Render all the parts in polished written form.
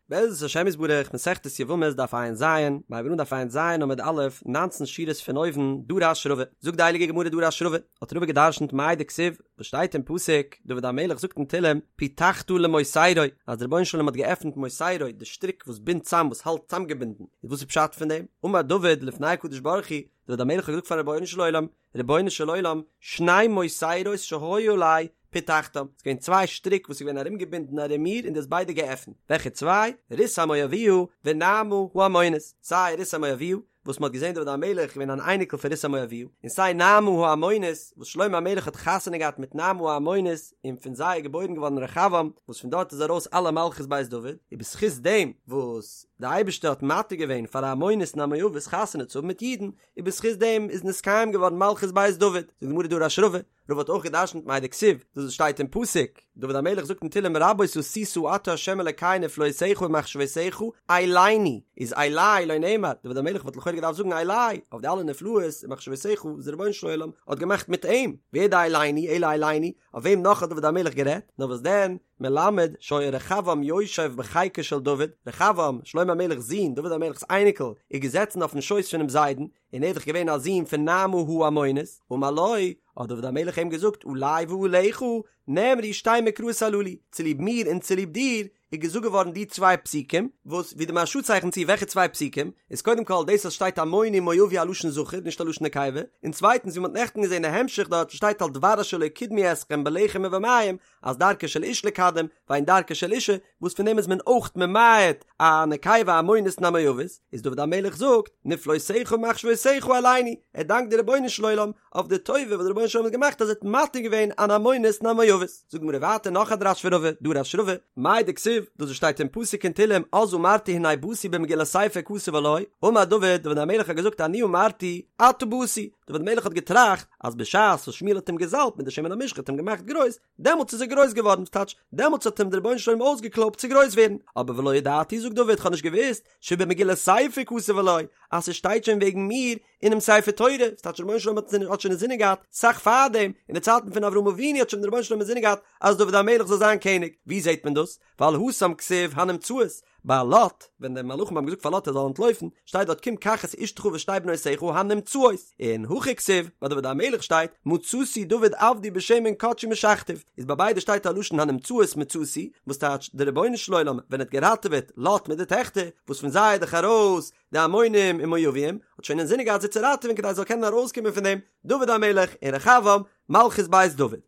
בעזרת השם יתברך, מסכת יבמות דף ע"ז, מיר הייבן אן דף ע"ז עמוד א', ניינצן שורות פון אויבן, דרש רבא, זאגט די הייליגע גמרא דרש רבא, האט רבא געדרשנט מאי דכתיב, וואס שטייט אין פסוק, דוד המלך זאגט אין תהלים, פיתחת למוסרי, אז דער רבונו של עולם האט געעפנט מוסרי, די שטריק וואס בינדט צאם, וואס האלט צאמגעבינדן, איז וואס איז פשט פון דעם? אמר דוד לפני הקדוש ברוך הוא, דוד המלך האט געזאגט פארן רבונו של עולם, רבונו של עולם, שני מוסרות שהיו עלי פתחתם, ס'איז געווען צוויי שטריק וואס איז געווען ארומגעבינדן ארום מיר און דו האסט ביידע געעפנט, וועלכע צוויי? רות המואביה ונעמה העמונית, סיי רות המואביה וואס מ'האט געזען דוד המלך איז געווען אן אייניקל פון רות המואביה, און סיי נעמה העמונית וואס שלמה המלך האט חתונה געהאט מיט נעמה העמונית און פון זיי איז געבוירן געווארן רחבעם וואס פון דארט איז ארויס אלע מלכות בית דוד, און בזכות דעם וואס די אייבערשטער האט מתיר געווען פאר א עמונית און א מואבית חתונה צו האבן מיט אידן, און בזכות דעם איז נתקיים געווארן מלכות בית דוד, זאגט די גמרא דרש רבא, רבא האט אויך געדרשנט מאי דכתיב, דאס וואס שטייט אין פסוק, דוד המלך זאגט אין תהלים רבות עשית אתה ה' אלקי נפלאותיך ומחשבותיך אלינו, איז אלי לא נאמר, דוד המלך וואלט לכאורה געדארפט זאגן אלי, אויף די אלע נפלאות און מחשבותיך וואס דער רבונו של עולם האט געמאכט מיט אים, ווער די אלינו, אלא אלינו, אויף וועם נאך האט דוד המלך גערעדט, נאר וואס דען, מלמד שהיה רחבעם יושב בחיקו של דוד, רחבעם, שלמה המלך'ס זון, דוד המלך'ס אייניקל, איז געזעצן אויפן שויס פונעם זיידן, און ער איז דאך געווען א זון פון נעמה העמונית, אמר לו, האט דוד המלך אים געזאגט, עלי ועליך נאמרו שתי מקראות הללו, צוליב מיר און צוליב דיר איז געזאגט געווארן די צוויי פסוקים, וואס ווי די מהרש"א צייכנט צו וועלכע צוויי פסוקים, איז קודם כל דאס אז שטייט עמוני מואבי א לשון זכר נישט א לשון נקבה, און צווייטנס ווי מ'האט נעכטן געזען א המשך דארט שטייט על דבר אשר לא קדמו אתכם בלחם ובמים, אז דרכה של איש לקדם ואין דרכה של אישה, וואס פון דעם איז מען אויך ממעט א נקבה עמונית און א מואבית, איז דוד המלך זאגט, נפלאותיך ומחשבותיך אלינו, ער דאנקט די רבונו של עולם אויף די טובה וואס די רבונו של עולם האט געמאכט אז ער האט מתיר געווען אן עמונית און א מואבית. זאגט די גמרא ווייטער נאך א דרש פון רבא, דרש רבא, מאי דכתיב, דאס וואס שטייט אין פסוק אין תהלים, אז אמרתי הנה באתי במגילת ספר כתוב עלי, אמר דוד, דוד המלך האט געזאגט אני אמרתי, עתה באתי, דוד המלך האט געטראכט אז בשעת וואס שמואל האט אים געזאלבט מיט די שמן המשחה האט אים געמאכט גרויס, דעמאלטס איז ער גרויס געווארן, וואס טייטש, דעמאלטס האט אים דער רבונו של עולם אויסגעקלויבט צו גרויס ווערן, אבער ולא ידעתי זאגט דוד כ'האב נישט געוואוסט, שבמגילת ספר כתוב עלי, אז ס'שטייט שוין וועגן מיר אינעם ספר תורה, וואס טייטש דער רבונו של עולם האט שוין אינזינען געהאט סאך פארדעם, אין די צייטן פון אברהם אבינו האט שוין דער רבונו של עולם אינזינען געהאט אז דוד המלך זאל זיין קעניג, ווי זעט מען דאס? ווייל התם כתיב הנמצאות, ביי לוט, ווען די מלאכים האבן געזאגט פאר לוט ער זאל אנטלויפן, שטייט דארט קום קח את אשתך ושתי בנותיך הנמצאות, און הכא כתיב, ביי דוד המלך שטייט, מצאתי דוד עבדי בשמן קדשי משחתיו, איז ביי ביידע שטייט א לשון הנמצאות מצאתי, וואס טייטש דער רבונו של עולם ווען ער האט געראטעוועט לוט מיט די טעכטער, וואס פון זיי איז דאך ארויס די עמונים און מואבים, האט שוין אינזינען געהאט זיי צו ראטעווען כדי עס זאל קענען ארויסקומען פון דעם דוד המלך און רחבעם מלכות בית דוד.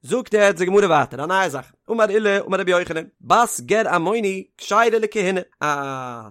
זאגט יעצט די גמרא ווייטער א נייע זאך, אמר עולא אמר רבי יוחנן, בת גר עמוני כשרה לכהונה, א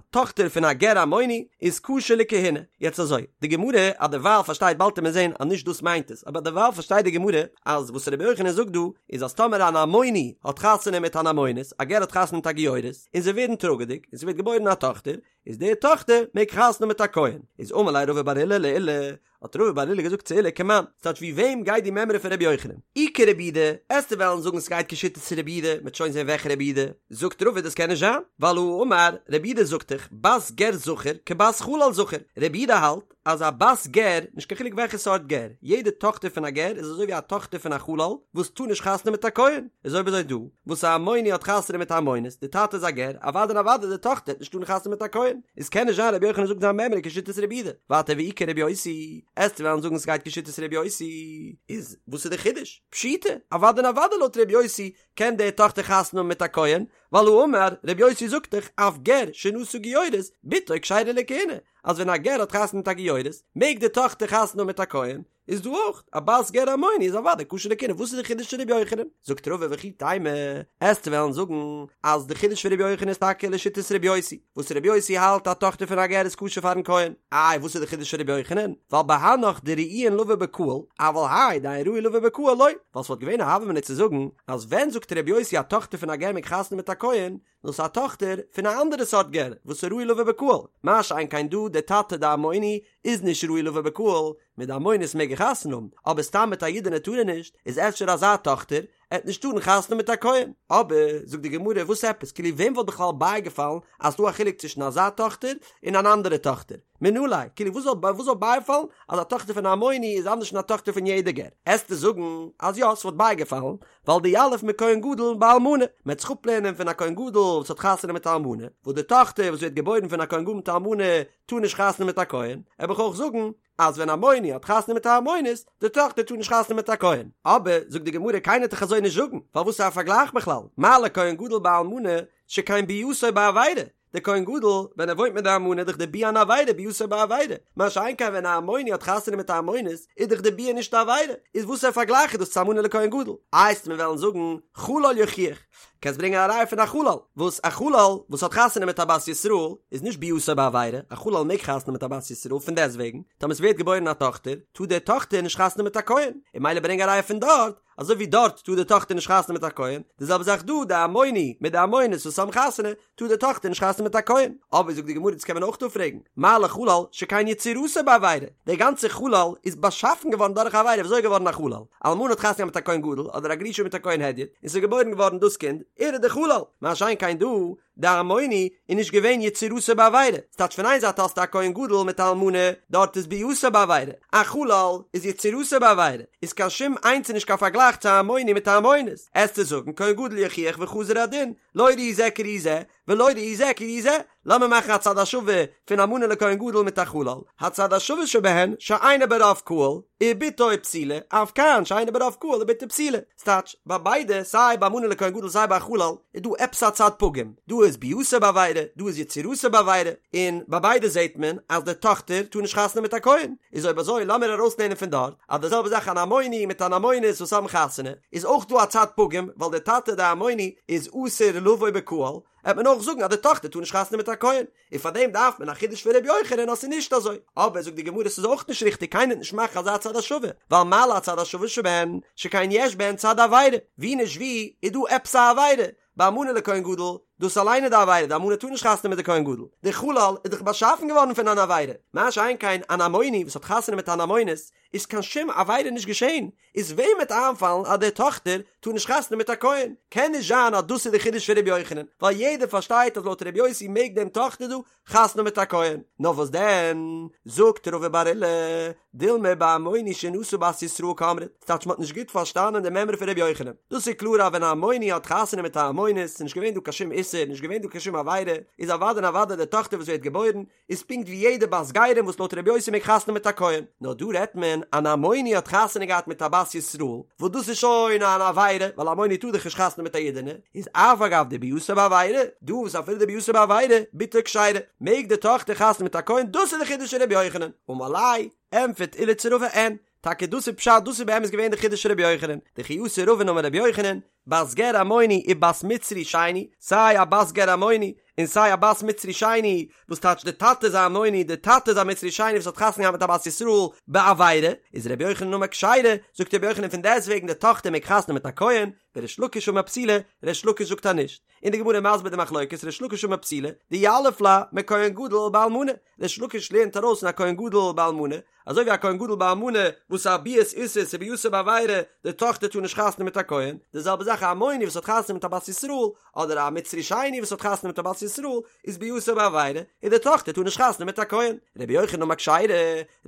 טאכטער פון א גר עמוני איז כשר לכהונה, יעצט אזוי, די גמרא אז דערווייל פארשטייט באלד וועט מען זען אז נישט דאס מיינט עס, אבער דערווייל פארשטייט די גמרא אז וואס רבי יוחנן זאגט דא איז אז טאמער אן עמוני האט חתונה מיט אן עמונית, א גר האט חתונה מיט א גיורת, און זיי ווערן טראגעדיג, און ס'ווערט געבוירן א טאכטער, איז די טאכטער מעג חתונה האבן מיט א כהן, איז אמר ליה רבא בר עולא לעולא, האט רבא בר עולא געזאגט צו עולא כמאן, ס'טייטש ווי וועם גייט די מימרא פון רבי יוחנן? אי כרבי יהודה, עסטו וועלן זאגן ס'גייט כשיטת רבי יהודה, מ'עט שוין זען וועלכע רבי יהודה, זאגט רבא דאס קען נישט זיין, ווייל הא אמר, רבי יהודה זאגט דאך, בת גר זכר כבת חלל זכר, רבי יהודה האלט אז א בת גר, נישט קיין חילוק וועלכע סארט גר, יעדע טאכטער פון א גר איז אזוי ווי א טאכטער פון א חלל וואס טאר נישט חתונה מיט א כהן, איז אויב אזוי דא, וואס א עמוני האט חתונה מיט א עמונית, די טאטע איז א גר, אוודאי און אוודאי די טאכטער וועט נישט טארן חתונה מיט א כהן, איז קען נישט זיין רבי יוחנן זאגט זיין מימרא כשיטת רבי יהודה, ווייטער ואי כרבי יוסי, עסטו וועלן זאגן ס'גייט כשיטת רבי יוסי, איז וואס איז די חידוש? פשיטא, אוודאי און אוודאי לויט רבי יוסי קען די טאכטער חתונה האבן מיט א כהן, ווייל הא אמר, רבי יוסי זאגט דאך אף גר שנשא גיורת, בתו כשרה לכהונה, אז ווען א גר האט חתונה מיט א גיורת, מעג די טאכטער חתונה האבן מיט א כהן, איז דא אויך א בת גר עמוני איז אוודאי כשר לכהונה וואס איז די חידוש פון רבי יוחנן? זאגט רבא וכי תימא, עסטו וועלן זאגן אז די חידוש פון רבי יוחנן איז טאקע לשיטת רבי יוסי, וואס רבי יוסי האלט א טאכטער פון א גר איז כשר פארן כהן, איי וואס איז די חידוש פון רבי יוחנן? ווייל בהנך דראויין לבא בקהל, אבל האי דאין ראוי לבא בקהל לא, ווייל ס'וואלט געווען א הוה אמינא צו זאגן אז ווען זאגט רבי יוסי א טאכטער פון א גר מעג חתונה מיט א כהן, נאר ס'איז א טאכטער פון א אנדערע סארט גר וואס איז ראוי לבא בקהל, מה שאין כן דא דער טאטע די עמוני איז נישט ראוי לבא בקהל, מיט די עמונית מעג ער חתונה האבן, אבער סתם מיט א אידענע טאר ער נישט, איז אפשר אזא טאכטער עט נישט טארן חתונה האבן מיט א כהן, אבער זאגט די גמרא וואס עפעס כאילו וועם וואלט בכלל בייגעפאלן אז ס'דא א חילוק צווישן אזא טאכטער און אן אנדערע טאכטער, מנא ליה, כאילו וואס זאל וואס זאל בייפאלן אז א טאכטער פון א עמוני איז אנדערש פון א טאכטער פון יעדע גר, עסטו זאגן אז יא ס'וואלט בייגעפאלן, ווייל דיליף מכהן גדול באלמנה, מ'עט זיך אפלערנען פון א כהן גדול. וואס האט חתונה מיט א אלמנה, וואס די טאכטער וואס ווערט געבוירן פון א כהן גדול מיט א אלמנה טאר נישט חתונה מיט א כהן, וועל איך אויך זאגן אז ווען עמוני האט חתונה מיט א עמונית, די טאכטער טאר נישט חתונה מיט א כהן. אבער, זאגט די גמרא, קיינער וועט דאך אזוי נישט זאגן, ווייל וואס איז א פארגלייך בכלל? מה לכהן גדול באלמנה שכן ביאתו בעבירה, דער כהן גדול ווען ער וואוינט מיט די אלמנה איז דאך די ביאה אן עבירה ביאתו בעבירה, מה שאין כן ווען א עמוני האט חתונה מיט א עמונית איז דאך די ביאה נישט א עבירה, איז וואסער פארגלייך איז דאס צו אלמנה לכהן גדול? איי וועסט מיר וועלן זאגן חלל יוכיח, קענסט ברענגען א ראיה פון א חלל, וואס א חלל וואס האט חתונה מיט א בת ישראל איז נישט ביאתו בעבירה, א חלל מעג חתונה מיט א בת ישראל פון דעסטוועגן טאמער עס ווערט געבוירן א טאכטער טאר די טאכטער נישט חתונה מיט א כהן, און ממילא ברענג א ראיה פון דארט אזוי ווי דארט טאר די טאכטער נישט חתונה מיט א כהן, די זעלבע זאך דא, די עמוני מיט די עמונית וואס האבן חתונה, טאר די טאכטער נישט חתונה מיט א כהן. אבער זאגט די גמרא דאס קען מען אויך אפפרעגן, מה לחלל שכן יצירתו בעבירה, דער גאנצער חלל איז באשאפן געווארן דורך א עבירה, וויאזוי איז געווארן א חלל? אלמנה האט חתונה געהאט מיט א כהן גדול, אדער א גרושה מיט א כהן הדיוט, און ס'איז געבוירן געווארן דאס קינד, ער איז דער חלל, מה שאין כן דא, די עמוני איז נישט געווען יצירתו בעבירה, ס'טייטש פון איין זייט האסטו א כהן גדול מיט א אלמנה, דארט איז ביאתו בעבירה, א חלל איז יצירתו בעבירה, איז קיין שום איינס איז נישט קיין פארגלייך צו א עמוני מיט א עמונית, עסטו זאגן כהן גדול יוכיח וחזר הדין, לא ראי זה כראי זה, ולא ראי זה כראי זה, לאמיר מאכן א צד השווה פון אלמנה לכהן גדול מיט א חלל, הצד השווה שבהן שאינו ברוב קהל, ובתו פסולה, אף כאן שאינו ברוב קהל ובתו פסולה. ס'טייטש, ביי ביידע, סיי ביי אלמנה לכהן גדול סיי ביי א חלל, איז דא עפעס א צד פגום. דא איז ביאתו בעבירה, דא איז יצירתו בעבירה, און ביי ביידע זעט מען אז די טאכטער טאר נישט חתונה מיט א כהן. איז אויב אזוי לאמיר ארויסלערנען פון דארט, אז די זעלבע זאך אן עמוני מיט אן עמונית וואס האבן חתונה, איז אויך דא א צד פגום, ווייל דער טאטע דער עמוני איז אסור לבוא בקהל, העט מען אויך זאגן אז די טאכטער טאר נישט חתונה מיט א כהן, און פאר דעם דארף מען א חידוש פון ר' יוחנן אז ס'איז נישט אזוי, אבער זאגט די גמרא ס'איז אויך נישט ריכטיג קיינער וועט נישט מאכן אזא צד השווה, ווייל מה להצד השווה שבהן, שכן יש בהן צד עבירה, ווי נישט ווי איז דא עפעס א עבירה, ביי אלמנה לכהן גדול, דאס אליין איז די עבירה, די אלמנה טאר נישט חתונה מיט די כהן גדול, די חלל איז דאך באשאפן געווארן פון אן עבירה, מה שאין כן אן עמוני וואס האט חתונה מיט אן עמונית, איז קיין שום עבירה נישט געשען, איז וועם וועט איינפאלן אז די טאכטער טאר נישט חתונה מיט א כהן? קען נישט זיין אז דאס איז די חידוש פון ר' יוחנן, ווייל יעדער פארשטייט אז לויט ר' יוסי מעג דעם טאכטער דא חתונה מיט א כהן. נאר וואס דען, זאגט רבא בר עולא, דילמא בעמוני שנשא בת ישראל קאמרת, ס'טייטש מ'האט נישט גוט פארשטאנען די מימרא פון ר' יוחנן. דאס איז קלאר אז ווען א עמוני האט חתונה מיט א עמונית, איז נישט געווען דא קיין שום איסור, נישט געווען דא קיין שום עבירה, איז אוודאי און אוודאי די טאכטער וואס ווערט געבוירן, איז פונקט ווי יעדע בת גרים וואס לויט רבי יוסי מעג חתונה מיט א כהן, נאר דא רעדט מען אן עמוני האט חתונה געהאט מיט א בת ישראל, וואס דאס איז שוין אן עבירה, ווייל עמוני טאר דאך נישט חתונה מיט א אידענע, איז אף על גב דביאתו בעבירה, דא וואס אפילו דביאתו בעבירה, בתו כשרה, מעג די טאכטער חתונה מיט א כהן, דאס איז די חידוש פון רבי יוחנן, אמר ליה, ענטפערט עולא צו רבא אין, טאקע דאס איז פשט דאס איז באמת געווען די חידוש פון רבי יוחנן, דכי אתא רבין אמר רבי יוחנן, בת גר עמוני ובת מצרי שני, סיי א בת גר עמוני און סיי א בת מצרי שני, וואס טייטש די טאטע איז א עמוני די טאטע איז א מצרי שני וואס האט חתונה געהאט מיט א בת ישראל בעבירה, איז רבי יוחנן אמר כשרה, זאגט רבי יוחנן פון דעסטוועגן די טאכטער מעג חתונה מיט א כהן, וריש לקיש אמר פסולה, ריש לקיש זאגט אז נישט. און די גמרא איז מסביר די מחלוקת ריש לקיש אמר פסולה, דיליף לה מכהן גדול באלמנה, ריש לקיש לערנט ארויס פון א כהן גדול באלמנה, אזוי ווי א כהן גדול באלמנה וואס איז א ביאת איסור ס'איז ביאתו בעבירה, די טאכטער טאר נישט חתונה מיט א כהן, די זעלבע זאך א עמוני וואס האט חתונה מיט א בת ישראל, אדער א מצרי שני וואס האט חתונה מיט א בת ישראל, איז ביאתו בעבירה, און די טאכטער טאר נישט חתונה מיט א כהן. רבי יוחנן אמר כשרה,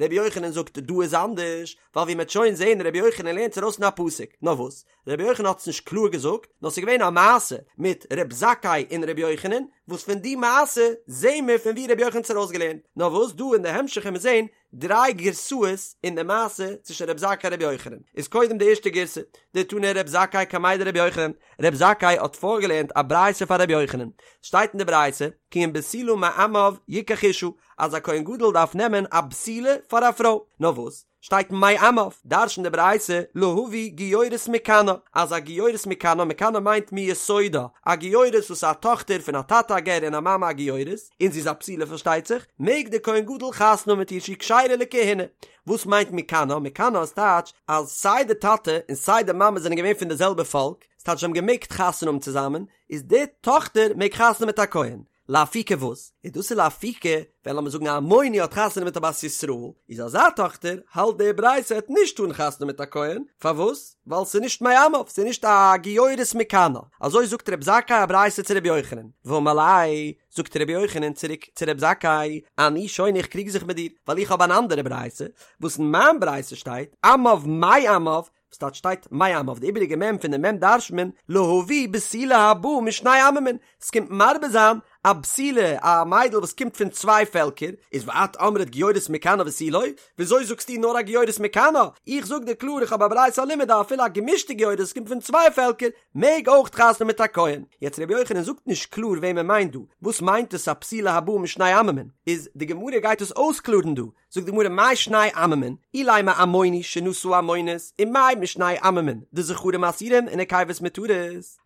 רבי יוחנן זאגט דא איז אנדערש, ווייל ווי מ'עט שוין זעהן רבי יוחנן לערנט ארויס פון א פסוק, נאר וואס? רבי יוחנן האט עס נישט קלאר געזאגט, נאר ס'איז געווען א מעשה מיט ר' זכאי און ר' יוחנן, וואס פון די מעשה זעהן מיר פון ווי ר' יוחנן האט עס ארויסגעלערנט, נאר וואס דא אין די המשך וועלן מיר זעהן דריי גירסאות אין די מעשה צווישן ר' זכאי און ר' יוחנן, איז קודם די ערשטע גירסא, דתני ר' זכאי קמיה דר' יוחנן, ר' זכאי האט פארגעלערנט א ברייתא פאר ר' יוחנן, שטייט אין די ברייתא, כי אם בתולה מעמיו יקח אשה, אז א כהן גדול דארף נעמען א בתולה פאר א פרוי, נאר וואס? שטייט מעמיו, דרש'נט די ברייתא, להביא גיורת מכנה, אז א גיורת מכנה, מכנה מיינט מיסודה, א גיורת וואס איז א טאכטער פון א טאטע א גר און א מאמע א גיורת, און זי איז א בתולה פארשטייט זיך, מעג דער כהן גדול חתונה האבן מיט איר שהיא כשרה לכהונה. וואס מיינט מכנה? מכנה איז טייטש אז סיי די טאטע און סיי די מאמע זענען געווען פון די זעלבע פאלק, ס'טייטש זיי האבן געמעגט חתונה האבן צוזאמען, איז די טאכטער מעג חתונה מיט א כהן. לאפוקי וואס? איז דאס איז לאפוקי ווען לאמיר זאגן א עמוני האט חתונה מיט א בת ישראל, איז אזא טאכטער האלט די ברייתא העט נישט טארן חתונה מיט א כהן, פארוואס? ווייל ס'איז נישט מעמיו, ס'איז נישט א גיורת מכנה, אזוי זאגט רב זכאי א ברייתא צו רבי יוחנן, ואמר ליה, זאגט רבי יוחנן צוריק צו רב זכאי, אני שונה איך קריג זיך מיט דיר, ווייל איך האב אן אנדערע ברייתא, וואס אין מיין ברייתא שטייט, עמיו מעמיו, וואס טייטש שטייט מעמיו? די איבעריגע מ' פון די מ' דרש'נט מען להביא בתולה הבאה משני עממין, ס'קומט מרבה זיין א בתולה, א מיידל וואס קומט פון צוויי פעלקער, איז ואת אמרת גיורת מכנה ותו לא, וויאזוי זאגסטו נאר א גיורת מכנה? איך זאג דיר קלאר איך האב א ברייתא א לימוד אז אפילו א געמישטע גיורת וואס קומט פון צוויי פעלקער מעג אויך חתונה מיט א כהן. יעצט רבי יוחנן זאגט נישט קלאר וועם ער מיינט דא, וואס מיינט עס א בתולה הבאה משני עממין? איז די גמרא גייט עס אויסקלארן דא, זאגט די גמרא מאי שני עממין, אילימא עמוני שנשא עמונית, ומאי משני עממין, דזכרים אסורים ונקבות מותרות,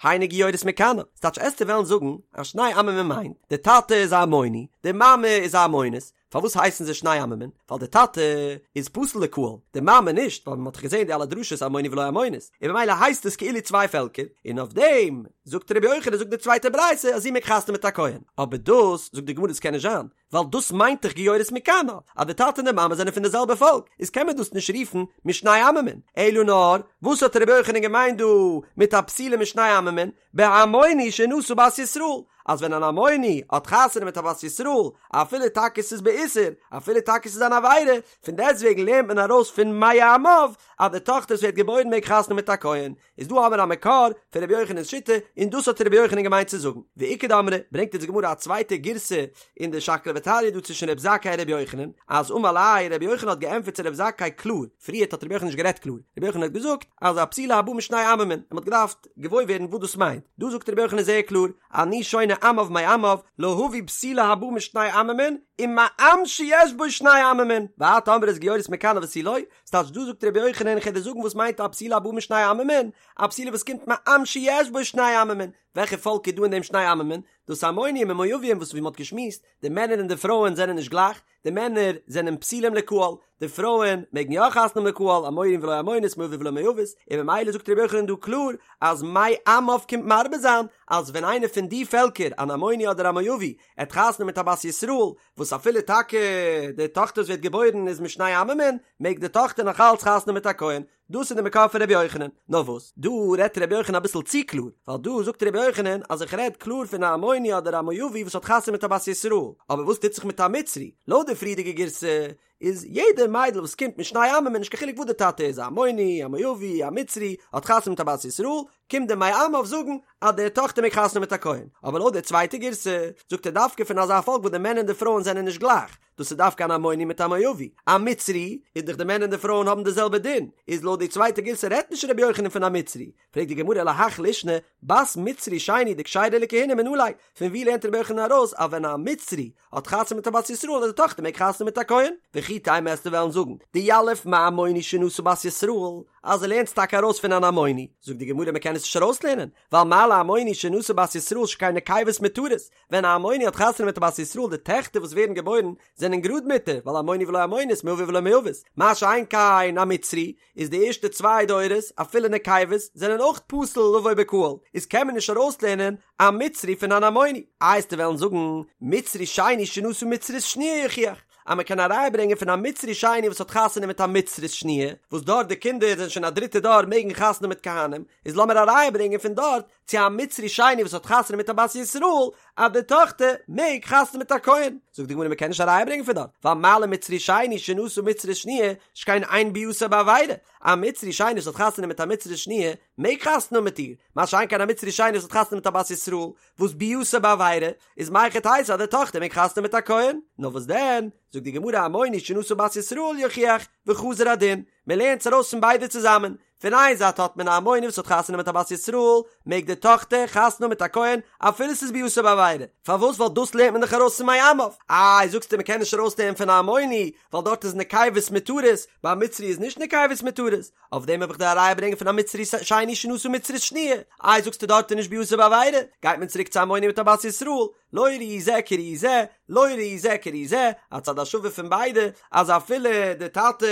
היינו גיורת מכנה, ס'טייטש עסטו וועלן זאגן אז שני עממין מיינט, די טאטע איז א עמוני, די מאמע איז א עמונית, פארוואס הייסן זיי שני עממין? ווייל די טאטע איז פסול לקהל, די מאמע נישט, ווייל מ'האט דאך געזען די אלע דרשות עמוני ולא עמונית, און ממילא הייסט עס כאילו צוויי פעלקער, און אויף דעם זאגט רבי יוחנן זאגט די צווייטע ברייתא אז זי מעג חתונה מיט א כהן, אבער דאס זאגט די גמרא דאס קען נישט זיין, ווייל דאס מיינט דאך גיורת מכנה, אז די טאטע און די מאמע זענען פון די זעלבע פאלק, איז קען מען דאס נישט רופן משני עממין, אלא נאר, וואס האט רבי יוחנן געמיינט דא מיט א בתולה משני עממין, בעמוני שנשא בת ישראל, אז ווען אן עמוני האט חתונה מיט א בת ישראל, אפילו טאקע ס'איז באיסור, אפילו טאקע ס'איז אן עבירה, פון דעסטוועגן לערנט מען ארויס פון מעמיו אז די טאכטער וואס ווערט געבוירן מעג חתונה מיט א כהן, איז דא האמיר א מקור פון רבי יוחנן'ס שיטה, און דאס האט רבי יוחנן געמיינט צו זאגן. ואיכא דאמרי, ברענגט אונז די גמרא א צווייטע גירסא אין די שקלא וטריא דא צווישן רבי זכאי און רבי יוחנן, אז אמר ליה רבי יוחנן האט געענטפערט צו רבי זכאי קלאר, פריערט האט רבי יוחנן נישט גערעדט קלאר, רבי יוחנן האט געזאגט אז א בתולה הבאה משני עממין, און מ'האט געדארפט געוואויר ווערן וואס דאס מיינט, דא זאגט רבי יוחנן זייער קלאר, אני שונה עמיו מעמיו, להביא בתולה הבאה משני עממין, ומעם שיש בו שני עממין, ואת אמרת גיורת מכנה ותו לא, ס'טייטש דא זאגט רבי יוחנן איך וועל דיר זאגן וואס מיינט א בתולה הבאה משני עממין, א בתולה וואס קומט מעם שיש בו שני עממין, וועלכע פאלק איז דא אין דעם שני עממין? דאס עמונים און מואבים וואס ווי מ'האט געשמועסט, די מענער און די פרויען זענען נישט גלייך, די מענער זענען פסולים לקהל, די פרויען מעגן יא חתונה האבן לקהל, עמוני ולא עמונית, מואבי ולא מואבית, און ממילא זאגט רבי יוחנן דא קלאר אז מעמיו קומט מרבה זיין אז ווען איינער פון די פעלקער, אן עמוני אדער א מואבי, עט חתונה מיט א בת ישראל, וואס אפילו טאקע די טאכטער וואס ווערט געבוירן איז משני עממין, מעג די טאכטער נאך אלץ חתונה מיט א כהן, דאס איז די מקור פון רבי יוחנן. נאר וואס, דא רעדט רבי יוחנן אביסל צו קלאר, ווייל דא זאגט רבי יוחנן אז איך רעד קלאר פון א עמוני אדער א מואבי וואס האט חתונה מיט א בת ישראל, אבער וואס טוט זיך מיט א מצרי? לויט די פריערדיגע גירסא איז יעדע מיידל וואס קומט משני עממין נישט קיין חילוק וואס די טאטע איז א עמוני, א מואבי, א מצרי, האט חתונה מיט א בת ישראל, קומט די מעמיו זאגן אז די טאכטער מעג חתונה מיט א כהן, אבער לויט די צווייטע גירסא זאגט ער דווקא פון אזא פאלק וואס די מענער און די פרויען זענען נישט גלייך, דאס איז דווקא אן עמוני מיט א מואבי, א מצרי איז דאך די מענער און די פרויען האבן די זעלבע דין, איז לויט די צווייטע גירסא רעדט נישט רבי יוחנן פון א מצרי, פרעגט די גמרא להך לישנא, בת מצרי שני דכשרה לכהונה מנא ליה, פון ווי לערנט רבי יוחנן ארויס אז ווען א מצרי האט חתונה מיט א בת ישראל אז די טאכטער מעג חתונה מיט א כהן? וכי תימא עסטו וועלן זאגן דיליף מעמוני שנשא בת ישראל אז ער לערנט עס טאקע ארויס פון אן עמוני, זאגט די גמרא מען קען עס נישט ארויסלערנען, ווייל מה לעמוני שנשא בת ישראל שכן נקבות מותרות, ווען א עמוני האט חתונה מיט א בת ישראל די טעכטער וואס ווערן געבוירן זענען גראד מותר, ווייל עמוני ולא עמונית מואבי ולא מואבית, מה שאין כן א מצרי, איז די ערשטע צוויי דורות אפילו נקבות זענען אויך פסול לבוא בקהל, איז קען מען נישט ארויסלערנען א מצרי פון אן עמוני. איי עסטו וועלן זאגן מצרי שני שנשא מצרית שניה יוכיח אז מען קען א ראיה ברענגען פון א מצרי שני וואס האט חתונה מיט א מצרית שניה, וואס דארט די קינדער זענען שוין א דריטע דור מעגן חתונה מיט כהנים, איז לאמיר א ראיה ברענגען פון דארט צו א מצרי שני וואס האט חתונה מיט א בת ישראל אז די טאכטער מעג חתונה מיט א כהן, זאגט די גמרא מען קען נישט א ראיה ברענגען פון דארט, ווייל מה למצרי שני שנשא מצרית שניה שכן אין ביאתו בעבירה, א מצרי שני וואס האט חתונה מיט א מצרית שניה מעג חתונה מיט איר, מה שאין כן א מצרי שני וואס האט חתונה מיט א בת ישראל וואס ביאתו בעבירה, איז מהיכי תיתי אז די טאכטער מעג חתונה מיט א כהן, נאר וואס דען, זאגט די גמרא עמוני שנשא בת ישראל יוכיח, וחזר הדין, מען לערנט עס ארויס פון ביידע צוזאמען, פון איין זייט האט מען א עמוני וואס האט חתונה מיט א בת ישראל, מעג די טאכטער חתונה מיט א כהן אפילו ס'איז ביאתו בעבירה, פארוואס ווייל דאס לערנט מען דאך ארויס פון מעמיו, איי זאגסטו מ'קען נישט ארויסלערנען פון א עמוני ווייל דארט איז נקבות מותרות, ביי א מצרי איז נישט נקבות מותרות, אויף דעם האב איך דיר א ראיה ברענגען פון א מצרי שני שנשא מצרית שניה, איי זאגסטו דארט איז נישט ביאתו בעבירה, גייט מען צוריק צו עמוני מיט א בת ישראל, לא ראי זה כראי זה, לא ראי זה כראי זה, א צד השווה פון ביידע, אז אפילו די טאטע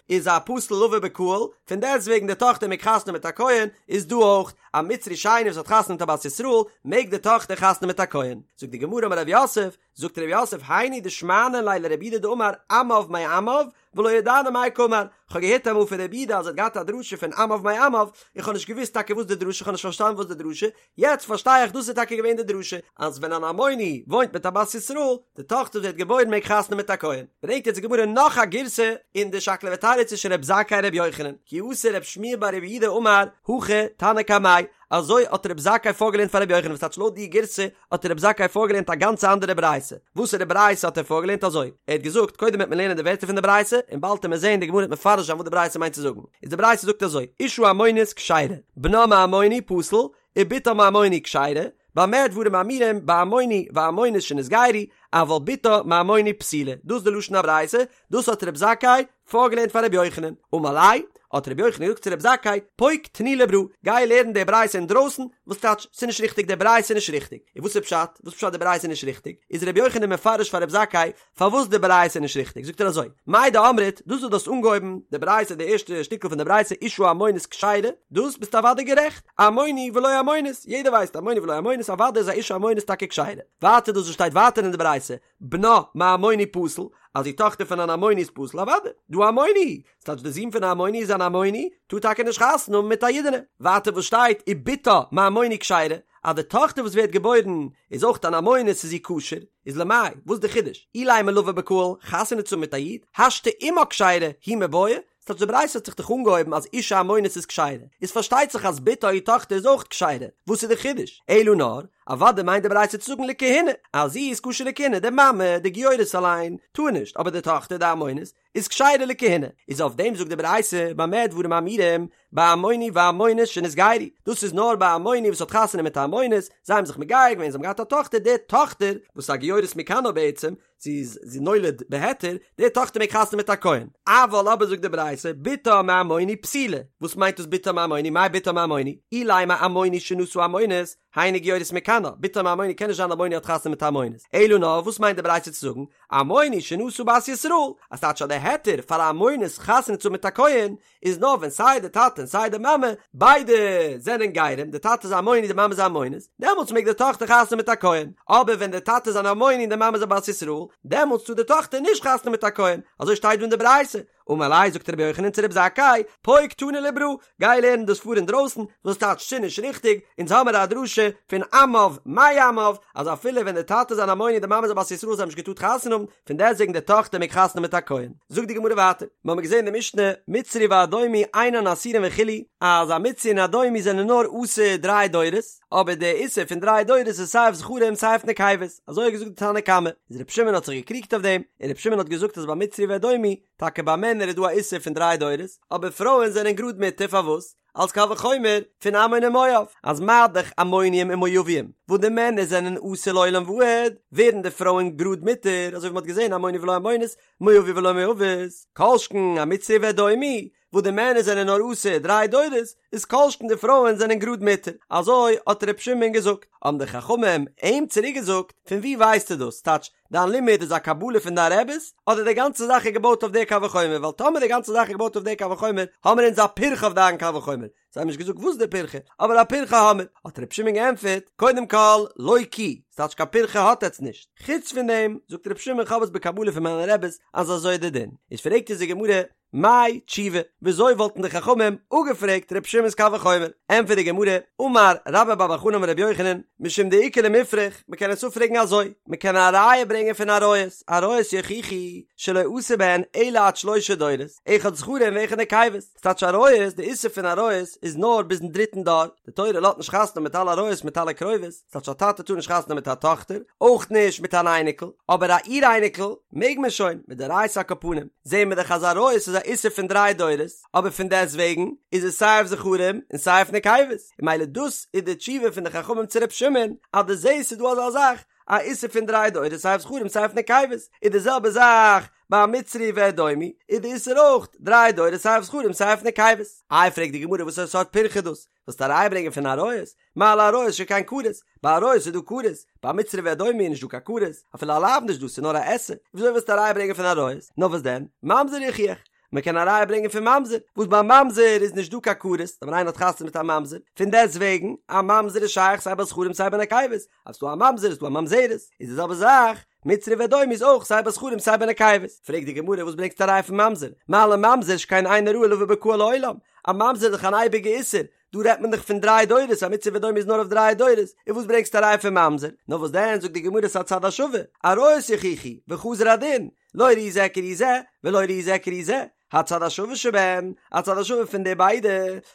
איז א פסול לבוא בקהל, פון דעסטוועגן די טאכטער מעג חתונה מיט א כהן, איז דא אויך, א מצרי שני וואס האט חתונה מיט א בת ישראל, מעג די טאכטער חתונה מיט א כהן. זאגט די גמרא אמר רב יוסף, זאגט רב יוסף היינו דשמענא ליה לרב יהודה דאמר עמיו מעמיו ולא ידענא מאי קאמר, כ'האב געהערט אמאל פון רב יהודה אז ער האט געהאט א דרשה פון עמיו מעמיו, איך האב נישט געוואוסט טאקע וואס די דרשה, כ'האב נישט פארשטאנען וואס די דרשה, יעצט פארשטיי איך דאס איז טאקע געווען די דרשה, אז ווען אן עמוני וואוינט מיט א בת ישראל, די טאכטער וואס ווערט געבוירן מעג חתונה מיט א כהן. ברענגט יעצט די גמרא נאך א גירסא אין די שקלא וטריא צווישן רב זכאי און רבי יוחנן, כי אתא רב שמואל בר רב יהודה אמר הכי תנא קמיה, אזוי האט רב זכאי פארגעלערנט פאר רבי יוחנן וואס טייטש לויט די גירסא האט רב זכאי פארגעלערנט א גאנצע אנדערע ברייתא, וואסערע ברייתא האט ער פארגעלערנט אזוי? ער האט געזאגט קודם וועט מען לערנען די ווערטער פון די ברייתא און באלד וועט מען זעהן די גמרא וועט מפרש זיין וואס די ברייתא מיינט צו זאגן, איז די ברייתא זאגט אזוי, אשה עמונית כשרה, בנה מעמוני פסול, ובתה מעמוני כשרה, במה דברים אמורים בעמוני ועמונית שנתגיירו, אבל בתה מעמוני פסולה, דאס איז די לשון הברייתא, דאס האט רב זכאי פארגעלערנט פאר רבי יוחנן, אמר ליה, האט רבי יוחנן געזאגט צו רב זכאי, פוק תני לברא, גיי לערן די ברייתא אינדרויסן, וואס טייטש, ס'איז נישט ריכטיג די ברייתא איז נישט ריכטיג, און וואס איז פשט, וואס פשט די ברייתא איז נישט ריכטיג, איז רבי יוחנן מפרש פאר רב זכאי פארוואס די ברייתא איז נישט ריכטיג, זאגט ער אזוי, מאי דאמרת, דאס וואס דו האסט אנגעהויבן די ברייתא די ערשטע שטיקל פון די ברייתא אשה עמונית כשרה, דאס ביסטו אוודאי גערעכט, עמוני ולא עמונית, יעדער ווייסט עמוני ולא עמונית, אוודאי איז א אשה עמונית טאקע כשרה, ווייטער דאס וואס שטייט ווייטער אין די ברייתא, בנה מעמוני פסול, אז די טאכטער פון אן עמוני איז פסול, אוודאי, דהא עמוני, ס'טייטש די זון פון א עמוני איז אן עמוני, טאר טאקע נישט חתונה האבן מיט א אידענע. ווייטער וואס שטייט ובתה מעמוני כשרה, אז די טאכטער וואס ווערט געבוירן איז אויך אן עמונית איז זי כשר, איז למאי, וואס די חידוש? אילימא לבא בקהל, חתונה צו האבן מיט א איד, השתא אמה כשרה, היא מיבעיא, ס'טייטש די ברייתא האט זיך דאך אנגעהויבן אז אשה עמונית איז כשרה, איז פארשטייט זיך אז בתה איר טאכטער איז אויך כשרה, וואס איז די חידוש? אלא נאר, אוודאי מיינט די ברייתא צו זאגן לכהונה, אז זי איז כשר לכהונה, די מאמע, די גיורת אליין, טאר נישט, אבער די טאכטער, די עמונית, איז כשרה לכהונה, איז אויף דעם זאגט די ברייתא, במה דברים אמורים, בעמוני ועמונית שנתגיירו, דאס איז נאר ביי א עמוני וואס האט חתונה מיט א עמונית, זיי האבן זיך מגייר געווען, זיי האבן געהאט א טאכטער, די טאכטער, וואס איז א גיורת מכנה בעצם, זי איז זי נולד בהיתר, די טאכטער מעג חתונה מיט א כהן. אבל אבער זאגט די ברייתא, בתה מעמוני פסולה, וואס מיינט דאס בתה מעמוני, מאי בתה מעמוני? אילימא עמוני שנשא עמונית, היינו גיורת מכנה, בתה מעמוני קען נישט זיין עמוני האט חתונה מיט א עמונית. אלא נאר וואס מיינט די ברייתא צו זאגן, עמוני שנשא בת ישראל, אז טייטש אז די היתר פאר א עמונית חתונה צו האבן מיט א כהן, איז נאר ווען סיי די טאטע און סיי די מאמע ביידע זענען גרים, די טאטע איז א עמוני די מאמע איז א עמונית, דעמאלטס מעג די טאכטער חתונה מיט א כהן, אבער ווען די טאטע איז אן עמוני און די מאמע איז א בת ישראל, דעמאלטס טאר די טאכטער נישט חתונה מיט א כהן, אזוי שטייט דא אין די ברייתא, אמר ליה זאגט רבי יוחנן צו רבי זכאי, פוק תני לברא, גיי לערן דאס פאר אינדרויסן, וואס טייטש ס'איז נישט ריכטיג, אונז האמער א דרשה פון עמיו מעמיו, אז אפילו ווען די טאטע איז אן עמוני און די מאמע איז א בת ישראל זיי האבן נישט געטארט חתונה האבן, פון דעסטוועגן די טאכטער מעג חתונה מיט א כהן. זאגט די גמרא ווייטער, מיר האבן געזען אין די משנה, מצרי ואדומי אינן אסורין וכו', אז א מצרי און אדומי זענען נאר אסור דריי דורות, אבער די איסור פון דריי דורות איז סיי אויף זכרים סיי אויף נקבות, אזוי האט געזאגט די תנא קמא, איז רבי שמעון האט זיך געקריגט אויף דעם, און רבי שמעון האט געזאגט אז ביי מצרי ואדומי, טאקע ביי מענער איז דא א איסור פון דריי דורות, אבער פרויען זענען גראד מותר, פארוואס? אלס קל וחומר פון עמון און מואב, אז מה דאך עמונים און מואבים, וואס די מענער זענען אסור לעולם ועד, ווערן די פרויען גראד מותר, אזוי ווי מ'האט געזען עמוני ולא עמונית, מואבי ולא מואבית, כל שכן א מצרי ואדומי, וואס די מענער זענען נאר אסור דריי דורות, איז כל שכן די פרויען זענען גראד מותר, אזוי האט ר' שמעון געזאגט, האבן די חכמים אים צוריק געזאגט, פון וואו ווייסטו דאס, טייטש, דיין לימוד איז א קבלה פון דיין רעבעס, אדער די גאנצע זאך איז געבויט אויף די קל וחומר, ווייל טאמער די גאנצע זאך איז געבויט אויף די קל וחומר, האמער אונז א פירכא אויף דיין קל וחומר, זיי האבן נישט געזאגט וואס די פירכא, אבער א פירכא האמער, האט ר' שמעון געענטפערט, קודם כל, לא כי, ס'טייטש קיין פירכא האט עטץ נישט, חוץ פון דעם, זאגט ר' שמעון כ'האב עס בקבלה פון מיינע רעבעס אז אזוי איז די דין, איז פרעגט אונז די גמרא, מאי תשובה, וויאזוי וואלטן די חכמים אפגעפרעגט ר' שמעון'ס קל וחומר? ענטפערט די גמרא, אמר רבה בר בר חנה אמר רבי יוחנן, משום דאיכא למיפרך, מ'קען עס אפפרעגן אזוי, מ'קען א ראיה ברענגען פון עריות, עריות יוכיחו שלא עשו בהן אלא עד שלשה דורות, אחד זכרים ואחד נקבות, ס'טייטש עריות, די איסור פון עריות איז נאר ביזן דריטן דור, די תורה לאזט נישט חתונה מיט אלע עריות מיט אלע קרובות, ס'טייטש א טאטע טאר נישט חתונה מיט א טאכטער, אויך נישט מיט אן אייניקל, אבער א אור אייניקל מעג מען שוין, מדאורייתא על כל פנים, זעהן מיר דאך אז עריות איז א איסור פון דריי דורות, אבער פון דעסט וועגן איז עס סיי אויף זכרים און סיי אויף נקבות, און ממילא דאס איז די תשובה פון די חכמים צו ר' שמעון, אז דו זעהסט ס'איז דא אזא זאך א איסור פון דריי דורות סיי אויף זכרים סיי אויף נקבות, איז די זעלבע זאך ביי מצרי ואדומי, איז די איסור אויך דריי דורות סיי אויף זכרים סיי אויף נקבות. איי פרעגט די גמרא וואס סארט פירכא דאס? ווילסט א ראיה ברענגען פון עריות? מה לעריות שכן כרת? ביי עריות איז דא כרת, ביי מצרי ואדומי איז נישט דא קיין כרת, אפילו א לאו נישט דא, ס'איז נאר א עשה, וויאזוי ווילסטו א ראיה ברענגען פון עריות? נאר וואס דען? ממזר יוכיח! מען קען א ראיה ברענגען פון ממזר, וואס ביי ממזר איז נישט דא קיין כרת, טאמער איינער האט חתונה מיט א ממזר, פון דעסט וועגן, א ממזר איז שייך סיי ביי זכרים סיי ביי נקבות, אז ס'דא א ממזר איז דא א ממזרת, איז די זעלבע זאך, מצרי ואדומי איז אויך סיי ביי זכרים סיי ביי נקבות. פרעגט די גמרא וואס ברענגסטו א ראיה פון ממזר? מה לממזר שכן אינו ראוי לבא בקהל לעולם, א ממזר איז דאך אן אייביגע איסור, דא רעדט מען דאך פון דריי דורות, א מצרי ואדומי איז נאר אויף דריי דורות, און וואס ברענגסטו א ראיה פון ממזר? נאר וואס דען זאגט די גמרא ס'א צד השווה, עריות יוכיחו, וחזר הדין, לא ראי זה כראי זה, ולא ראי זה כראי זה, הצד השווה שבהן, א צד השווה פון די ביידע,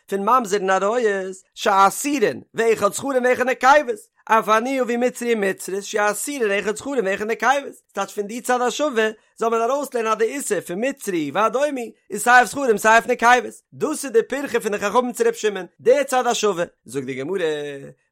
פון ממזר און עריות, שאסורין, ואחד זכרים ואחד נקבות, אף אני אביא מצרי ומצרית שאסורין אחד זכרים ואחד נקבות, ס'טייטש פון די צד השווה זאל מען ארויסלערנען אז די איסור פון מצרי ואדומי איז סיי אויף זכרים סיי אויף נקבות, דאס איז די פירכא פון די חכמים צו ר' שמעון, די צד השווה, זאגט די גמרא,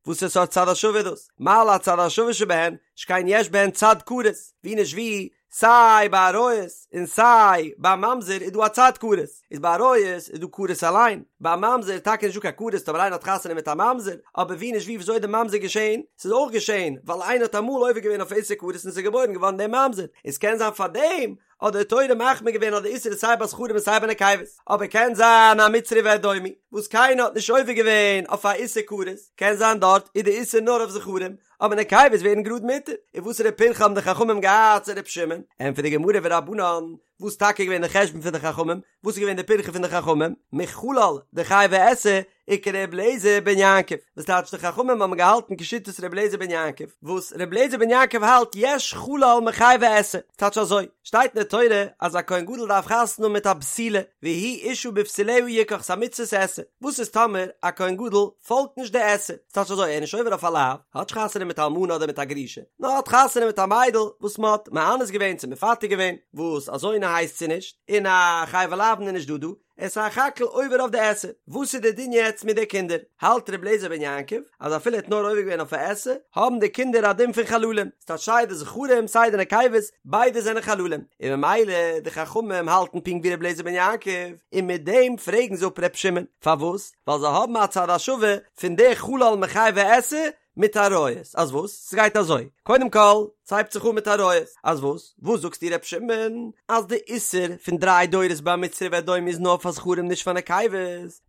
וואסער סארט צד השווה איז דאס? מה להצד השווה שבהן, שכן יש בהן צד כרת, ווי נישט ווי, סיי ביי עריות און סיי ביי ממזר איז דא א צד כרת, איז ביי עריות איז דא כרת אליין, ביי ממזר איז טאקע נישט דא קיין כרת טאמער איינער האט חתונה מיט א ממזר, אבער ווי נישט ווי וויאזוי איז די ממזר געשען? ס'איז אויך געשען ווייל איינער האט אמאל עובר געווען אויף איסור כרת און ס'איז געבוירן געווארן דער ממזר, און ס'קען זיין פארדעם האט די תורה מחמיר געווען אז די איסור איז סיי ביי זכרים און סיי ביי נקבות, אבער קען זיין א מצרי ואדומי וואס קיינער האט נישט עובר געווען אויף א איסור כרת, קען זיין דארט איז די איסור נאר אויף זכרים, אבער נקבות ווערן גראד מותר, און וואסערע פירכא האבן די חכמים געהאט צו ר' שמעון? ענטפערט די גמרא ורבנן, וואס טאקע איז געווען די חשבון פון די חכמים? וואס איז געווען די פירכא פון די חכמים? מחלל דחייבי עשה וכר' אליעזר בן יעקב, וואס טייטש די חכמים האבן געהאלטן כשיטת ר' אליעזר בן יעקב, וואס ר' אליעזר בן יעקב האלט יש חלל מחייבי עשה, טייטש אזוי, שטייט אין די תורה אז א כהן גדול דארף חתונה האבן מיט א בתולה, והוא אשה בבתוליה יקח, ס'א מצוות עשה, וואס איז טאמער א כהן גדול פאלגט נישט די עשה, ס'טייטש אזוי ער איז נישט עובר אויף א לאו, האט נישט חתונה מיט א אלמנה אדער מיט א גרושה, נאר האט חתונה מיט א מיידל וואס מ'האט מאנס געווען צו מפתה געווען, וואס א זונה הייסט זי נישט, און א חייבי לאוין איז נישט דא דא, ער איז סך הכל עובר אויף די עשה, וואס איז די דין יעצט מיט די קינדער? האלט ר' אליעזר בן יעקב אז אפילו ער האט נאר עובר געווען אויף א עשה, האבן די קינדער א דין פון חללים, ס'טייטש סיי די זכרים סיי די נקבות, ביידע זענען חללים, און ממילא די חכמים האלטן פונקט ווי ר' אליעזר בן יעקב, און מיט דעם פרעגן זיי אפ ר' שמעון, פארוואס? ווייל זיי האבן א צד השווה פון די חלל מחייבי עשה מיט עריות, אז וואס? ס'גייט אזוי, קודם כל, ס'הייבט זיך אן מיט עריות, אז וואס? וואס זאגסטו ר' שמעון? אז די איסור פון דריי דורות ביי מצרי ואדומי איז נאר פאר זכרים נישט פאר נקבות,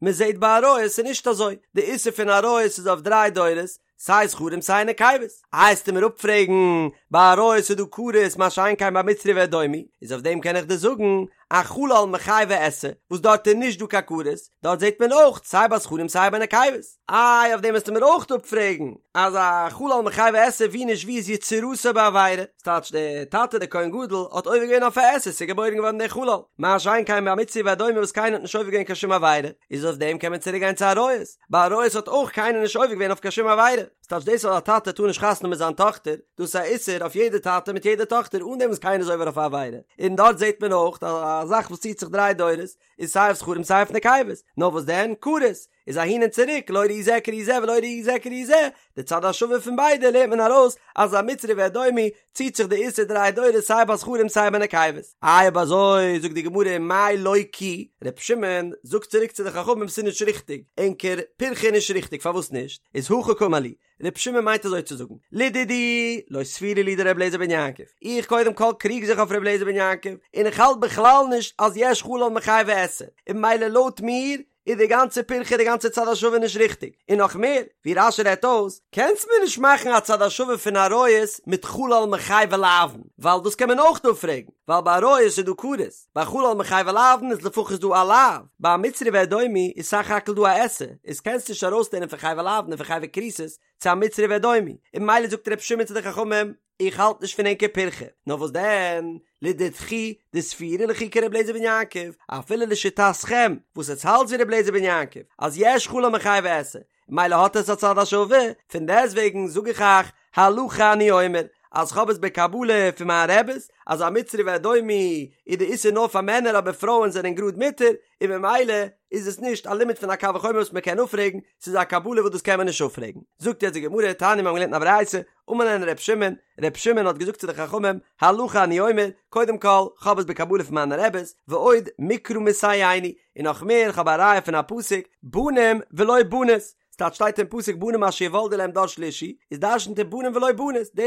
מ'זעט ביי עריות איז נישט אזוי, די איסור פון עריות איז אויף דריי דורות, סיי זכרים סיי נקבות. איי וועסטו מיר אפפרעגן, ביי עריות איז דא כרת מה שאין כן ביי מצרי ואדומי, איז אויף דעם קען איך דיר זאגן, א חלל מחייבי עשה, וואס דארט איז נישט דא קיין כרת, דארט זעט מען אויך סיי ביי זכרים סיי ביי נקבות. איי אויף דעם וועסטו מיר אויך אפפרעגן, אז א חלל מחייבי עשה ווי נישט ווי איז יצירתו בעבירה, ס'טייטש דער טאטע דער כהן גדול האט עובר געווען אויף א עשה ס'איז געבוירן געווארן דער חלל, מה שאין כן ביי מצרי ואדומי וואס קיינער האט נישט עובר געווען קיין שום עבירה, איז אויף דעם קען מען צוריק גיין צו עריות, ביי עריות האט אויך קיינער נישט עובר געווען אויף קיין שום עבירה, ס'טייטש דאס אז א טאטע טאר נישט חתונה מיט זיין טאכטער, דאס איז א איסור אויף יעדע טאטע מיט יעדע טאכטער אן דעם וואס קיינער איז עובר אויף א עבירה, און דארט זעט מען אויך אז א זאך וואס ציט זיך דריי דורות איז סיי אויף זכרים סיי אויף נקבות, נאר וואס דען, כרת איז אהין און צוריק, לא ראי זה כראי זה ולא ראי זה כראי זה, די צד השווה פון ביידע לערנט מען ארויס אז א מצרי ואדומי ציט זיך די איסור דריי דורות סיי ביי זכרים סיי ביי נקבות. איי אויב אזוי זאגט די גמרא מאי לא כי, ר' שמעון זאגט צוריק צו די חכמים ס'איז נישט ריכטיג, ענקער פירכא איז נישט ריכטיג פארוואס נישט? איז הכי קאמר להו, ר' שמעון מיינט אזוי צו זאגן, לדידי לא סבירא לי דר' אליעזר בן יעקב, איך קודם כל קריג זיך אויף ר' אליעזר בן יעקב, און איך האלט בכלל נישט אז יש חלל מחייבי עשה, און ממילא לויט מיר איז די גאנצע פירכא די גאנצע צד השווה נישט ריכטיג, און נאך מער, ווי רש"י רעדט אויס, קענסט מיר נישט מאכן א צד השווה פון עריות מיט חלל מחייבי לאוין, ווייל דאס קען מען אויך אפפרעגן, ווייל ביי עריות איז דא כרת, ביי חלל מחייבי לאוין איז לפחות דא א לאו, ביי מצרי ואדומי איז סך הכל דא א עשה, איז קענסט נישט ארויסלערנען פון חייבי לאוין און פון חייבי כריתות צו א מצרי ואדומי, און ממילא זאגט ר' שמעון צו די חכמים, איך האלט נישט פון ענקער פירכא, נאר וואס דען, לדידכו דסבירא לכו כר' אליעזר בן יעקב, אפילו לשיטתכם וואס עטס האלטס ווי ר' אליעזר בן יעקב, אז יש חלל מחייבי עשה, מילא האט עס א צד השווה, פון דעסטוועגן זאג איך אייך, הלכה אני אומר, אז כ'האב עס בקבלה פון מיין רעבעס, אז א מצרי ואדומי איז די איסור נאר פאר מענער אבער פרויען זענען גראד מותר, און ממילא איז עס נישט א לימוד פון א קל וחומר וואס מען קען אפפרעגן, ס'איז א קבלה וואס דאס קען מען נישט אפפרעגן. זאגט יעצט די גמרא, תניא מיר האבן געלערנט אין א ברייתא, אמר להן ר' שמעון, ר' שמעון האט געזאגט צו די חכמים, הלכה אני אומר, קודם כל, כ'האב עס בקבלה פון מיינע רעבעס, ועוד מקרא מסייעני, און נאך מער, כ'האב א ראיה פון א פסוק, בנים ולא בנות. ס'טייטש שטייט אין פסוק בנים אשר יולדו להם דור שלישי, איז דרשנ'ט ער בנים ולא בנות, די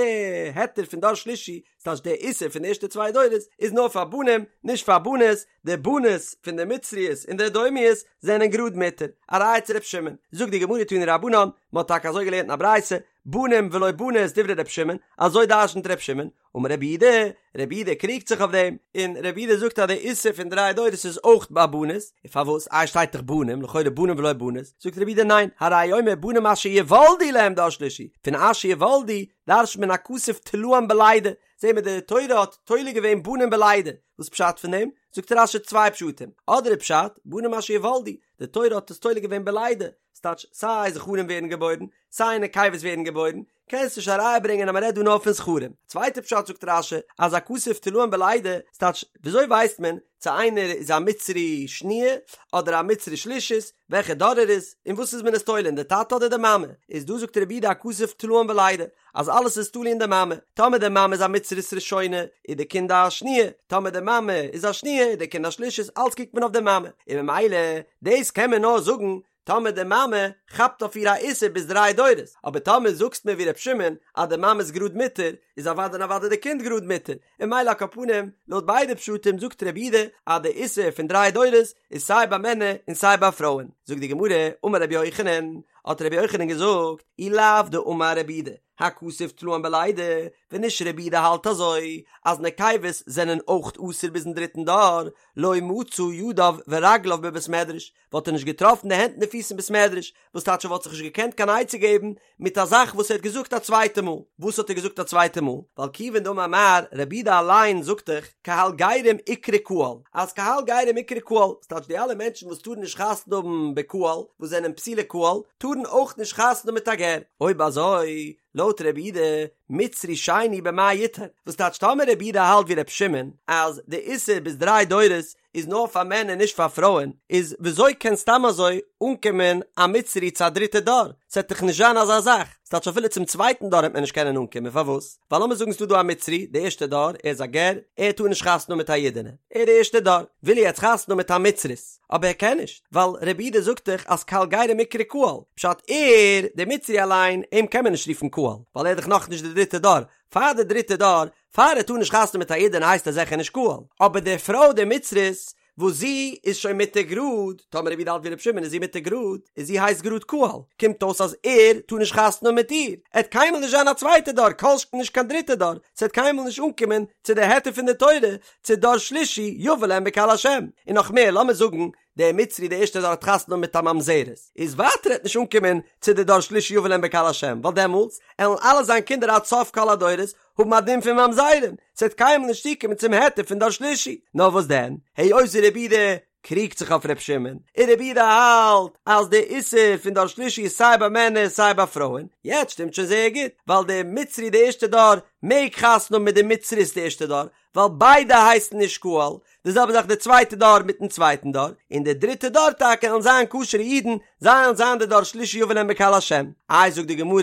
היתר פון דור שלישי, ס'טייטש די איסור פון די ערשטע צוויי דורות, איז נאר פאר בנים, נישט פאר בנות, די בנות פון די מצריות און די אדומיות זענען גראד מותר, א ראיה צו ר' שמעון, זאגט די גמרא תנו רבנן, מ'האט טאקע אזוי געלערנט אין א ברייתא, בנים ולא בנות דברי ר' שמעון, אזוי דרשנ'ט ר' שמעון, אמר רבי יהודה, רבי יהודה קריגט זיך אויף דעם, און רבי יהודה זאגט אז די איסור פון דריי דורות איז אויך ביי בנות, און פארוואס? איי שטייט דאך בנים, לכאורה בנים ולא בנות, זאגט רבי יהודה ניין, הרי הוא אומר בנים אשר יולדו להם דור שלישי, פון אשר יולדו דרש'נט מען הכתוב תלאן בלידה, זעהן מיר די תורה האט תולה געווען בנים בלידה, וואס פשט פון דעם? זאגט רש"י צוויי פשטים, אדער איז פשט, בנים אשר יולדו, די תורה האט עס תולה געווען בלידה, ס'טייטש סיי זכרים ווערן געבוירן, סיי נקבות ווערן געבוירן, קענסט נישט א ראיה ברענגען אז מ'רעדט דא נאר פון זכרים. צווייטע פשט זאגט רש"י אז הכתוב תלאן בלידה, ס'טייטש וויאזוי ווייסט מען צו איינער איז א מצרי שניה אדער א מצרי שלישית, וועלכע דור ער איז, אין וואס איז מען עס תולה אין די טאטע אדער די מאמע, איז דא זאגט רבי יהודה הכתוב תלאן בלידה, אז אלעס איז תלוי אין די מאמע, טאמער די מאמע איז א מצרית ראשונה איז די קינד א שניה, טאמער די מאמע איז א שניה איז די קינד א שלישית, אלץ קוקט מען אויף די מאמע, און ממילא דאס קען מען נאר זאגן טאמער די מאמע כאפט אויף איר א איסור ביז דריי דורות, אבער טאמער זאגסט מיר ווי ר' שמעון אז די מאמע איז גראד מותר, איז אוודאי און אוודאי די קינד גראד מותר, און ממילא על כל פנים, לויט ביידע פשטים זאגט רבי יהודה אז די איסור פון דריי דורות איז סיי ביי מענער און סיי ביי פרויען. זאגט די גמרא, אמר רבי יוחנן, האט רבי יוחנן געזאגט, אי לאו דאמר רבי יהודה, הכתוב תלאן בלידה, ווען נישט רבי יהודה האלט אזוי אז נקבות זענען אויך אסור ביזן דריטן דור, לא מצא ידיו ורגליו בבית מדרש, וואלט ער נישט געטראפן די הענט און די פיס אין בית מדרש, וואס טייטש ער וואלט זיך נישט געקענט קיין עצה געבן מיט א זאך וואס ער האט געזאגט א צווייטע מאל, וואס האט ער געזאגט א צווייטע מאל? ווייל כיוון דאמר מר, רבי יהודה אליין זאגט דאך, קהל גרים איקרי קהל, אז קהל גרים איקרי קהל, וואס טייטש די אלע מענטשן וואס טארן נישט חתונה האבן בקהל, וואס זענען פסולי קהל, טארן אויך נישט חתונה האבן מיט א גר, אויב אזוי, לויט רבי יהודה, מצרי שני במאי יטהר, וואס טייטש טאמער רבי יהודה האלט ווי רבי שמעון, אז די איסור ביז דריי דורות איז נאר פאר מענער נישט פאר פרויען, איז וויאזוי קען סתם אזוי אנקומען א מצרי צו א דריטע דור? ס'עט דאך נישט זיין אזא זאך, ס'טייטש אפילו צום צווייטן דור העט מען נישט קענען אנקומען, פארוואס? ווייל לאמיר זאגן ס'דא דא א מצרי, די ערשטע דור, ער איז א גר, ער טאר נישט חתונה האבן מיט א אידענע, ער די ערשטע דור, וויל ער יעצט חתונה האבן מיט א מצרית, אבער ער קען נישט, ווייל רבי יהודה זאגט דאך אז קהל גרים איקרי קהל, פשט ער, דער מצרי אליין, אים קען מען נישט רופן קהל, ווייל ער איז דאך נאכנישט די דריטע דור, פאר די דריטע דור, פאר ער טאר נישט חתונה מיט א אידענע הייסט ער זיכער נישט קהל, אבער די פרוי די מצרית וואס זי איז שוין מותר גראד, טאמער רבי יהודה האלט ווי רבי שמעון איז זי מותר גראד, איז זי הייסט גראד קהל, קומט אויס אז ער טאר נישט חתונה האבן מיט איר, ער וועט קיינמאל נישט זיין א צווייטע דור, כל שכן נישט קיין דריטע דור, ס'וועט קיינמאל נישט אנקומען צו די היתר פון די תורה, צו דור שלישי יבא להם בקהל השם, און נאך מער לאמיר זאגן דער מצרי דער ערשטער דור האט חתונה מיט א ממזרת, איז ווייטער עט נישט אנקומען צו די דור שלישי יבא להם בקהל השם, ווייל דעמאלטס עלן אלע זיין קינדער עד סוף כל הדורות האבן א דין פון ממזרים, ס'עט קיינמאל נישט צוקומען צום היתר פון דור שלישי, נאר וואס דען, היות רבי יהודה קריגט זיך אויף ר' שמעון, און רבי יהודה האלט אז די איסור פון דור שלישי איז סיי ביי מענער סיי ביי פרויען, יעצט שטימט שוין זייער גוט, ווייל דער מצרי די ערשטע דור מעג חתונה האבן מיט די מצרית די ערשטע דור, ווייל ביידע הייסן נישט קהל, די זעלבע זאך די צווייטע דור מיטן צווייטן דור, און די דריטע דור טאקע וועלן זיין כשר'ע אידן, זיי וועלן זיין די דור שלישי יבא להם בקהל השם. איי זאגט די גמרא,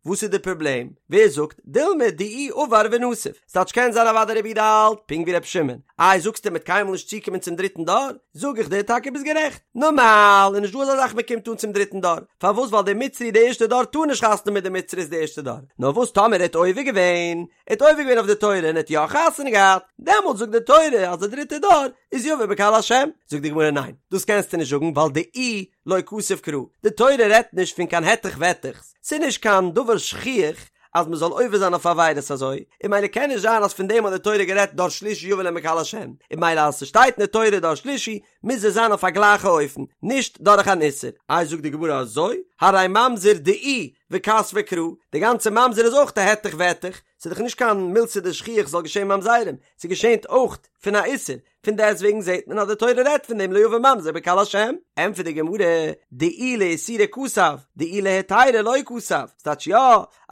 וואס איז די פראבלעם? ווער זאגט, דילמא דאי עבר ונסיב, ס'טייטש קען זיין אוודאי רבי יהודה האלט פונקט ווי רבי שמעון, איי זאגסטו מ'עט קיינמאל נישט צוקומען צום דריטן דור? זאג איך דיר טאקע ביסט גערעכט, נארמאל איז נישט דא אזא זאך מ'קומט אן צום דריטן דור, פארוואס ווייל דער מצרי די ערשטע דור טאר נישט חתונה מיט די מצרית די ערשטע דור, נאר וואס טאמער ער האט עובר געווען, ער האט עובר געווען אויף די תורה און ער האט יא חתונה געהאט, דעמאלט זאגט די תורה אז די דריטע דור איז יבא בקהל השם, זאגט די גמרא ניין, דאס קענסטו נישט זאגן ווייל דאי לא כתב קרא, די תורה רעדט נישט פון קיין העטעך וועטעכס, ס'איז נישט קיין דבר שכיח אז מען זאל עובר זיין אויף עבירות אזוי, און ממילא קען נישט זיין אז פון דעם האט די תורה גערעדט דור שלישי יבא להם בקהל השם, און ממילא אז ס'שטייט אין די תורה דור שלישי מוז עס זיין אויף א גלייכע אופן, נישט דורך אן איסור. איי זאגט די גמרא אזוי, הרי ממזר דאי וכתביה קרא, די גאנצע ממזר איז אויך א העטעך וועטעך, ס'איז דאך נישט קיין מילתא דשכיח זאל געשען ממזרים, ס'געשענט אויך פון א איסור, פון דעסט וועגן זעט מען אז די תורה רעדט פון דעם לא יבא ממזר בקהל השם. ענטפערט די גמרא, דאי לאיסורא כתב, דאי להיתירא לא כתב, ס'טייטש יא,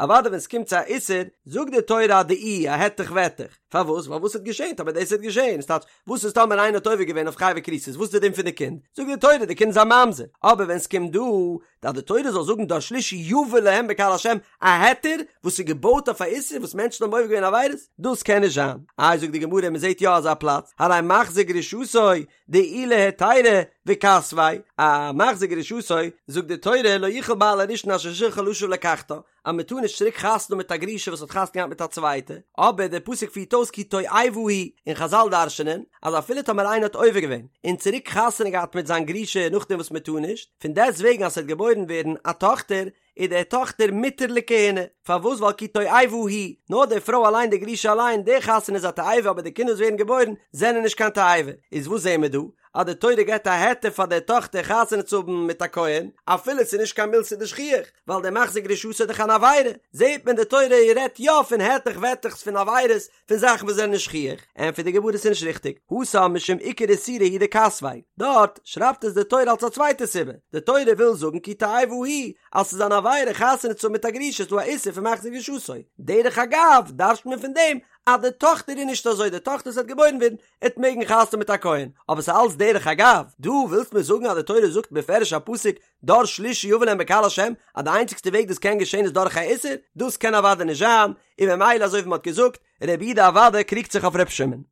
אוודאי ווען ס'קומט צו א איסור, זאגט די תורה א דאי, א העטעך וועטעך, פארוואס? ווייל וואס וועט געשען טאמער דאס וועט געשען, ס'טייטש, וואס איז טאמער איינער האט עובר געווען אויף חייבי כריתות, וואס איז די דין פון די קינד? זאגט די תורה די קינד איז א ממזר, אבער ווען ס'קומט דא אז די תורה זאל זאגן דור שלישי יבא להם בקהל השם, א היתר וואס איז געבויט אויף א איסור וואס מענטשן האבן עובר געווען עבירות, דאס קען נישט זיין. איי זאגט די גמרא מען זעט יא אזא פלאץ, הרי ממזר. מחזיר גרושתו דעילה היתירא וכתביה, א מחזיר גרושתו זאגט די תורה לא יוכל בעל הראשון אשר שלחה לשוב ולקחתה, אז מען טאר נישט צוריק חתונה מיט א גרושה וואס האט חתונה געהאט מיט א צווייטע, אבער דער פסוק פירט אויס כי תועבה היא, און חזל דרש'נען אז אפילו טאמער איינער האט עובר געווען און צוריק חתונה געהאט מיט זיין גרושה נאכדעם וואס מען טאר נישט, פון דעסט וועגן אז ס'וועט געבוירן ווערן א טאכטער, איז די טאכטער מותר לכהונה, פארוואס ווייל כי תועבה היא, נאר די פרוי אליין די גרושה אליין, די חתונה איז א תועבה אבער די קינדער וואס ווערן געבוירן זענען נישט קיין תועבה, איז וואס זעהן מיר דא? אז די תורה געבט א היתר פאר די טאכטער חתונה צו האבן מיט א כהן, אפילו ס'איז נישט קיין מילתא דשכיח, ווייל דער מחזיר גרושתו איז דאך אן עבירה, זעהט מען די תורה רעדט יא פון היתך וועטעך'ס פון עבירות, פון זאכן וואס זענען נישט שכיח, ענטפערט די גמרא ס'איז נישט ריכטיג, התם משום עיקר איסורא הוא דכתביה, דארט שרייבט עס די תורה אלס א צווייטע סיבה, די תורה וויל זאגן כי תועבה היא, אז ס'איז אן עבירה חתונה צו האבן מיט א גרושה איז דא א איסור פון מחזיר גרושתו, דרך אגב דרש'ט מען פון דעם אז די טאכטער איז נישט אזוי, די טאכטער וואס וועט געבוירן ווערן עט מעגן חתונה האבן מיט א כהן, אבער ס'איז אלץ דרך אגב, דא ווילסט מיר זאגן אז די תורה זאגט בפירוש א פסוק דור שלישי יבא להם בקהל השם אז די איינציגסטע וועג דאס קען געשען איז דורך א איסור, דאס קען אוודאי נישט זיין, און ממילא אזוי ווי מ'האט געזאגט, רבי יהודה אוודאי קריגט זיך אויף ר' שמעון.